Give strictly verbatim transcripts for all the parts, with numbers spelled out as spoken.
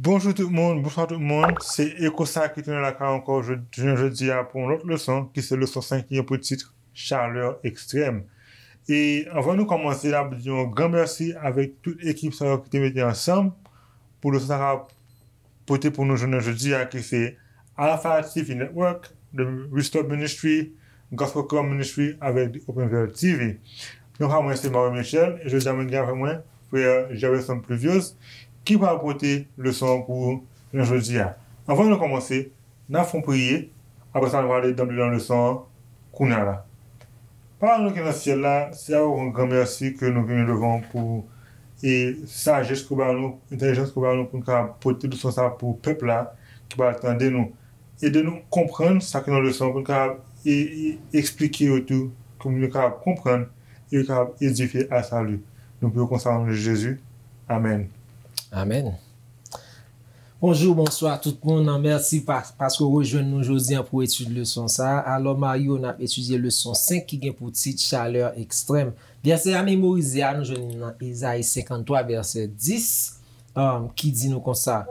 Bonjou tout moun, bonswa tout moun. Se Eko sa ki tounen lakay ankò jodi, jounen jodi a pou yon lòt leson, ki se leson senk ki gen pou tit Chalè ekstrèm. E anvan nou kòmanse, n ap di yon gran mèsi avèk tout ekip sa yo ki te mete ansanm pou leson sa ka pote pou nou jounen jodi a, ki se Alpha T V Network, The Restore Ministry, Gospel Club Ministry avèk The Open Veil T V. Non pa mwen se Mario Michel, e jodi a mwen gen avèk mwen frè Gerson Pluviose, ki pral pote leson an pou jounen jodi a. Anvan nou kòmanse, n ap fè yon priyè, apre sa nou prale dan leson an kounye a la. Papa nou ki nan syèl la, se avèk yon gran mèsi ke nou vini devan w pou e sajès ke w ba nou, entèlijans ke w ba nou pou n ka pote leson sa pou pèp la ki pral tande nou. Ede nou konprann sa ki nan leson pou n ka e, e, eksplike yo tou, pou moun yo ka konprann e yo ka edifye a sali. Nou priye konsa o non de Jezi. Amèn. Amèn. Bonjou, bonswa tout moun. Mèsi pa, paske w rejwenn nou jodi a pou etid leson sa a. Alò, Mario, n ap etidye leson senk ki gen pou tit Chalè ekstrèm. Vèsè a memorize a, nou jwenn li nan Ezayi senkanntwa, vèsè dis, um, ki di nou konsa,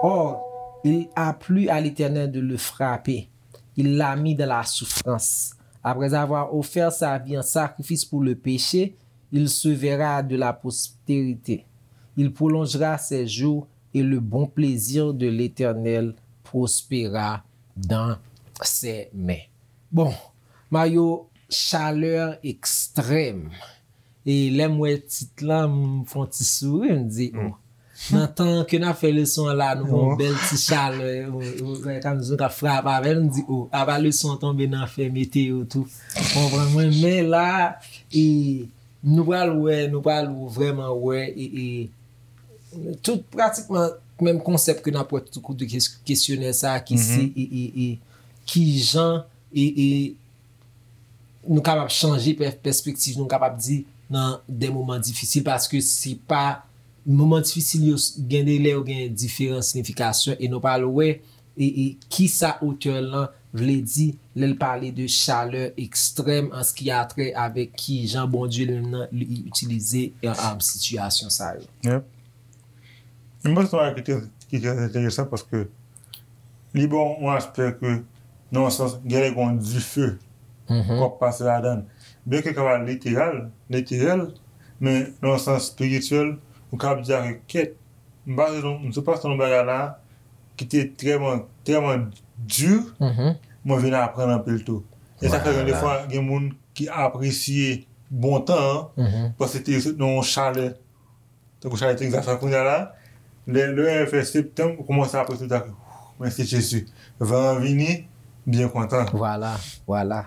Or, il a plu à l'Éternel de le frapper. Il l'a mis dans la souffrance. Après avoir offert sa vie en sacrifice pour le péché, il se verra de la postérité. Il prolongera ses jours et le bon plaisir de l'Éternel prospérera dans ses mains. Bon, Mario, chalè ekstrèm. E lè m wè tit lan, m fè yon ti souri, m di, oh. Nan tan ke n ap fè leson an la, nou gen yon bèl ti chalè, ou, ou, ou, kòm si nou ka frape avè l, m di, oh, apa leson an tonbe nan afè meteyo tou. Konprann mwen, men la, e, nou pral wè, nou pral vrèman wè, e, e, tout pratikman menm konsèp ke n ap wè tout kote kes-, kesyonè sa a ki se, e, e, e, kijan, e, e, nou kapab chanje pè-, pèspektiv nou, nou kapab di nan de moman difisil, paske se pa, moman difisil yo s-, gen de lè yo gen diferan siyifikasyon, e nou pral wè, e, e kisa otè lan vle di lè l pale de chalè ekstrèm an se ki a trè avèk kijan Bondye li menm nan li itilize, e, e, sitiyasyon sa yo. Yep. M panse se yon bagay ki trè, ki trè enteresan paske li ba w yon aspè ke, nan yon sans, gen lè gen yon dife k ap pase ladan l. Byenke l kapab literal, literèl, men nan yon sans espirityèl, ou kapab di a ke kèt, m pase nan, m sot pase nan yon bagay la ki te trèman, trèman di, mwen vin aprann anpil tou. E sa fè gen defwa, gen moun ki apresye bon tan an, paske te sot nan yon chalè, tankou chalè Tegzas la kounye a la, lè, lè fè septanm, ou kòmanse apresye tou, mèsi Jezi. Van an vini, byen kontan. Vwala, vwala.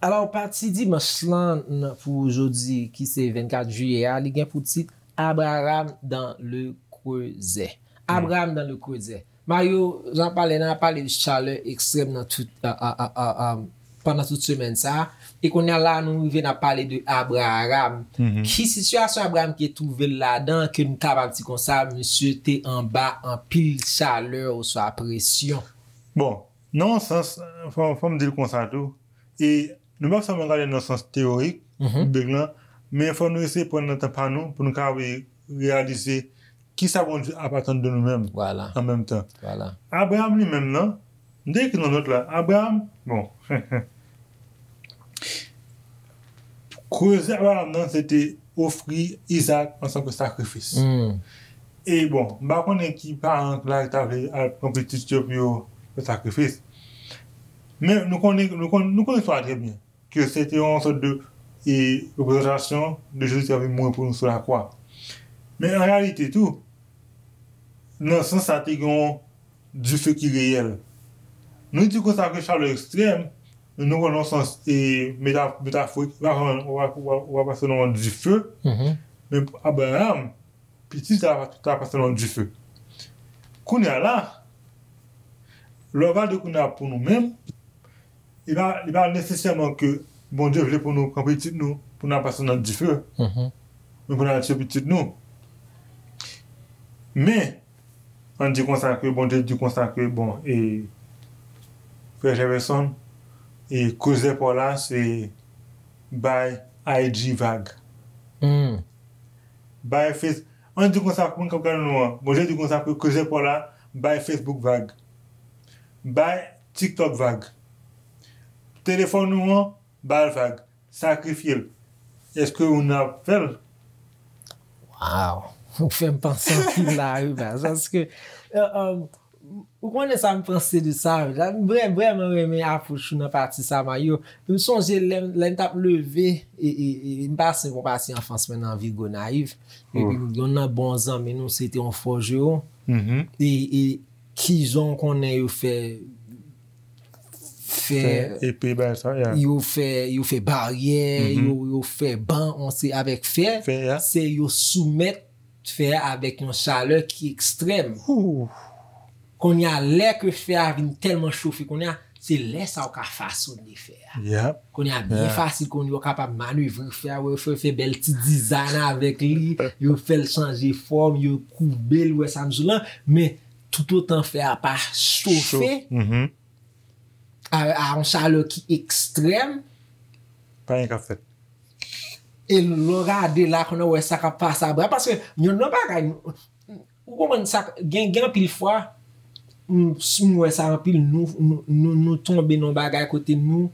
Alò, pati dimanch lan nan, pou jodi, ki se vennkat jiyè a, li gen pou tit Abraham dans le creuset. Abraham dans le creuset. Mario, jan pale, n a pale de chalè ekstrèm nan tout, a, a, a, a, a, pandan tout semèn sa a. E kounye a la, nou rive n ap pale de Abraham. Ki sitiyasyon Abraham ki twouve l ladan, ke nou kapab di konsa, misye te anba anpil chalè oswa presyon? Bon, nan yon sans, fò, fò m di l konsa tou. E nou p ap sèlman gade nan sans teyorik, bib lan, men fò nou eseye pran nan tan pa nou pou nou ka re-, reyalize kisa Bondye ap atann de nou menm an menm tan. Abraham li menm nan, m te ekri nan nòt la, Abraham, bon, Creuset Abraham nan, se te ofri Izaak antanke sakrifis. E bon, m pa konnen ki paran la ki ta vle al pran pitit yo pou yo fè sakrifis. Men nou konnen, nou konnen, nou konnen istwa a trè byen, ke se te yon sòt de, e, reprezantasyon de Jezi ki t ap vin mouri pou nou sou lakwa. Men an reyalite tou, nan sans sa, te gen yon dife ki reyèl. Nou di konsa ke chalè ekstrèm, nou pran nan sans, e, meta-, metaforik, w ap, w ap, w ap, w ap pase nan yon dife, men Abraham, pitit sa a, ta pase nan yon dife. Kounye a la, lè w gade kounye a pou nou menm, li pa, li pa nesesèman ke Bondye vle pou nou pran pitit nou, pou n al pase nan dife, men pou n al tiye pitit nou. Men, ann di konsa ke Bondye di konsa ke, bon, e, Frè Jefferson, e koze pa w la, se bay I G vag. Hmm. Bay Face, ann di konsa, pou moun k ap gade nou an, Bondye di konsa, pou koze pa w la, bay Facebook vag. Bay TikTok vag. Telefòn ou an, ba l vag. Sakrifye l. Èske ou nan ap fè l? Wow! Ou fè m panse anpil la, wi, baz. Paske, euh, euh, ou konnen sa m panse de sa, wi. La, m vrè, vrèman renmen apwòch ou nan pati sa, Mario. M sonje lè, lè m t ap leve, e, e, e, m pase, mwen pase anfans mwen nan vil Gonayiv. Epi, yon nan bon zanmi nou, se te yon fòjeron. E, e, kijan w konnen yo fè, fè, Fè epe, bagay sa, ya. yo fè, yo fè baryè, yo, yo fè ban, on se avèk fè, Fè, ya. Se yo soumèt fè a avèk yon chalè ki ekstrèm. Kounye a, lè ke fè a vin tèlman chofe, kounye a, se lè sa ou ka fasone fè a. Yep. Kounye a, byen fasil, kounye a, ou kapab manevre fè a, wè, fè, fè bèl ti design avèk li, yo fè l chanje fòm, yo koube l, wè sa m di w lan, men toutotan fè a pa chofe, Mhm. a, a yon chalè ki ekstrèm, Pa anyen k ap fèt. E lè w gade la, kounye a, wè sa k ap pase apre. Paske, yon nan bagay, ou konprann sa, gen, gen anpil fwa, m, si m wè sa anpil, nou, nou, nou, nou tonbe nan bagay kote nou,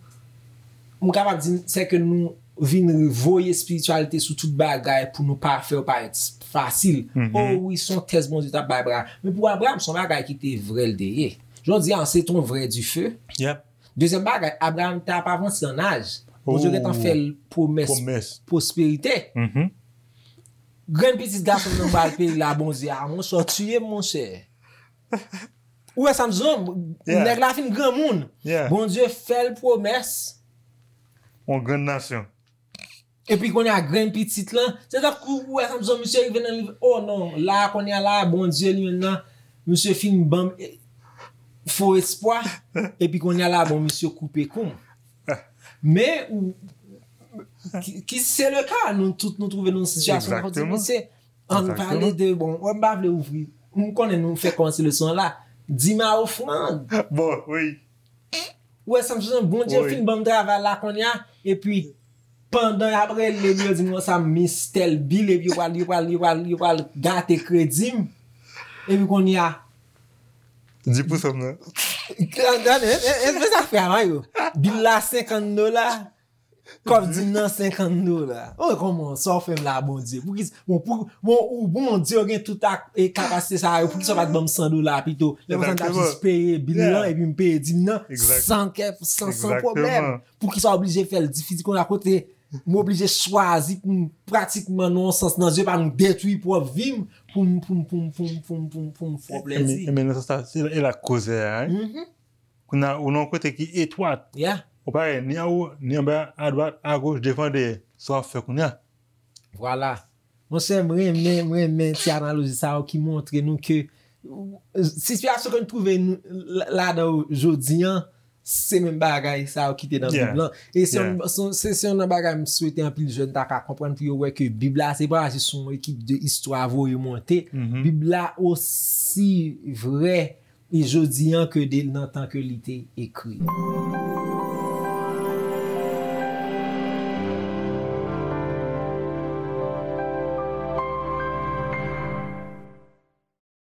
m kapab di, se ke nou vin voye espirityalite sou tout bagay pou nou pa fè yo parèt fasil. Oh wi, se yon tès Bondye t ap bay Abraram. Men pou Abraram, se yon bagay ki te vrè l te ye. Jodi a, se ton vrè dife. Yep. Dezyèm bagay, Abraram t ap avanse an aj. Bondye gentan fè l pwomès Pwomès. Pwosperite. Mhm. Grenn pitit gason nan pral peyi la, Bondye a, monchè, w tiye m, monchè. Ou wè sa m di w? Yeah. Nèg la fin granmoun. Yeah. Bondye fè l pwomès. Yon grenn nasyon. Epi kounye a grenn pitit lan, se tankou ou wè sa m di w, misye rive nan nivo, oh non, la kounye a la, Bondye li menm nan, misye fin ban m, eh, fo espwa, epi kounye a la, bon, misye koupe kou m. Men, ou, ki, ki se le ka, nou tout nou twouve nou nan sitiyasyon, nou di, Exactement. Mesye, ann pale de, bon, wè, m pa vle ouvri, m konnen nou fè kòmanse leson an la, dim a ofrann. Bon, wi. Ou wè sa m di w, Bondye Wi. Fin ban m travay la kounye a, epi pandan y ap rele m, yo di m konsa, m miss tèl bil, epi yo pral, yo pral, yo pral, yo pral gate kredi m. Epi kounye a, Di pou sa m nan. gade, e, e, e, sa fè a, Mario. Bil la senkant dola, kòb dim nan senkant dola. Oh, kòman, sa w fè m la, Bondye? Poukisa, bon, pou, bon, ou, Bondye, ou gen tout ak, e, kapasite sa yo, poukisa w pa t ban m san dola pito? Lè konsa, m t ap Exactement. Jis peye bil lan, Yeah. Epi m peye dim nan, Exact. San kè, san, san Exactement. Pwoblèm. Poukisa w oblije fè l difisil konsa kote m oblije chwazi pou m pratikman nan yon sans nan zye pa m detwi pwòp vi m pou m, pou m, pou m, pou m, pou m, pou m, pou m fè w plèzi. Men nan sans sa, se e la koze a, wi. Mhm. Kounye a, ou nan yon kote ki etwat. Yeah. Ou pa wè ni anwo, ni anba, adwat, agoch, devan, dèyè. Sa w ap fè kounye a? Vwala. Monchè, m renmen, m renmen ti analoji sa yo ki montre nou ke sitiyasyon ke nou twouve nou la- ladan yo jodi an, se menm bagay sa yo ki te nan Yeah. Bib lan. E se yon, Yeah. se, se, se yon nan bagay m swete anpil jèn ta ka konprann pou yo wè ke Bib la se pa jis yon ekip de istwa voye monte. Mhm. Bib la osi vrè e jodi an ke de nan tan ke li te ekri.